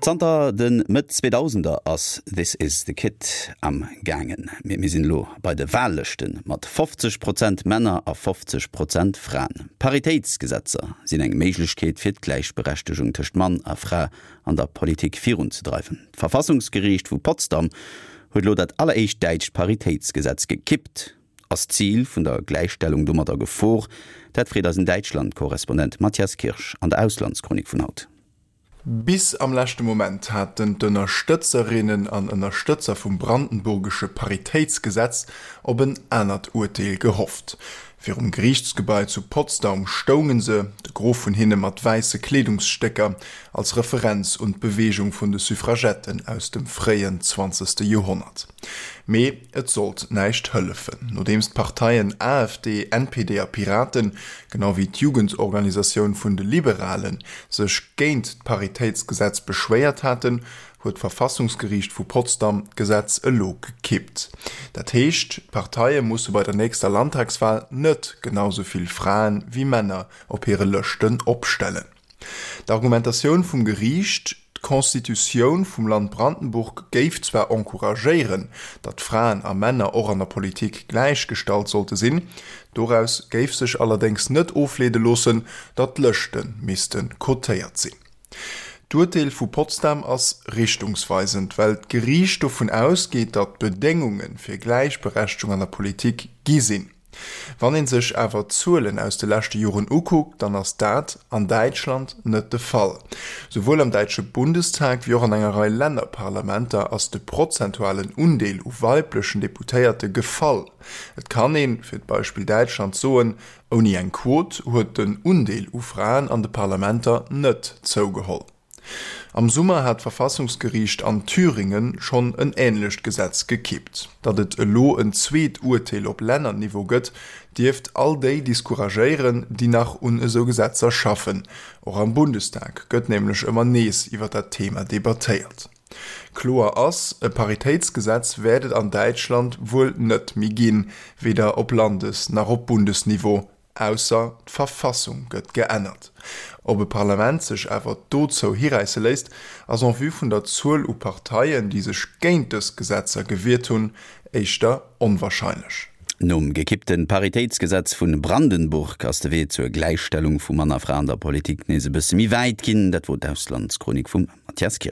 Zanter de Mëtt Zweedausender ass This is the Kit am gaangen. Mee mir sinn elo bei de Wahllëschte mat 50 Prozent Männer a 50 Prozent Fraen. Paritéitsgesetzer sinn eng Méiglechkeet fir d'Gläichberechtegung tëscht Mann a Fra an der Politik virunzedreiwen. D'Verfassungsgeriicht vu Potsdam huet elo dat alleréischt däitscht Paritéitsgesetz gekippt. Ass d'Zil vun der Gläichstellung domat a Gefor? Dat freet eisen Däitschland-Korrespondent Matthias Kirsch an der Auslandschronik vun haut. Bis am leschte Moment haten d'Ënnerstëtzerinnen an Ënnerstëtzer vum brandenburgesche Paritéitsgesetz op en anert Urteel gehofft. Virum Geriichtsgebai zu Potsdaum stounge se, de Gros vun hinne mat wäisse Kleedungsstécker, als Referenz un d'Beweegung vun de Suffragetten aus dem fréien zwanzegste Joerhonnert. Mee et sollt näischt hëllefen. Nodeems d'Parteien AfD, NPD a Piraten, genau wéi d'Jugendorganisatioun vun de Liberalen, sech géint d'Paritéitsgesetz beschwéiert haten, huet d'Verfassungsgeriicht vu Potsdam d'Gesetz elo gekippt. Dat heescht, d'Parteie musse bei der nächster Landtagswal net genau sou vill Fraen wéi Männer op hire Lëschten opstellen. D'Argumentatioun vum Geriicht, D'Constitutioun vum Land Brandenburg géif zwar encouragéieren, datt Fraen a Männer och an der Politik gläichgestallt sollte sinn, doraus géif sech allerdéngs net ofleede loossen, datt d'Lëschte misste cotéiert sinn. D'Urteel vu Potsdam ass richtungsweisend, well d'Geriicht dovun ausgeet, datt d'Bedéngunge fir Gläichberechtegung an der Politik gi sinn. Wann ee sech awer d'Zuelen aus de leschte Joren ukuckt, dann ass dat an Däitschland net de Fall. Souwuel am däitsche Bundestag wéi och an enger Rei Lännerparlamenter ass de prozentualen Undeel u weiblechen Deputéierte gefall. Et kann een, fir d'Beispill Däitschland, soen, Ouni eng Quot huet den Undeel u Fraen an de Parlamenter net zougeholl. Am Summer hat d'Verfassungsgeriicht an Thüringen schonn en änlecht Gesetz gekippt. Datt et elo en zweet Urteel op Lännerniveau gëtt, dierft all déi discouragéieren, déi nach un esou Gesetzer schaffen. Och am Bundestag gëtt nämlech ëmmer nees iwwer dat Thema debattéiert. Kloer ass, E Paritéitsgesetz wäert et an Däitschland wuel net méi ginn, weder op Landes nach op Bundesniveau. Ausser d'Verfassung gëtt geännert. Ob e Parlament sech awer dozou hiräisse léisst, ass en vue vun der Zuel u Parteien, déi sech géint dës Gesetzer gewiert hunn, éischter onwarscheinlech. Nom gekippte Paritéitsgesetz vu Brandenburg ass de Wee zur Gläichstellung vu Mann a Fra an der Politik nees e bësse méi wäit ginn. Dat wor d'Auslandschronik vum Mathias Kirsch.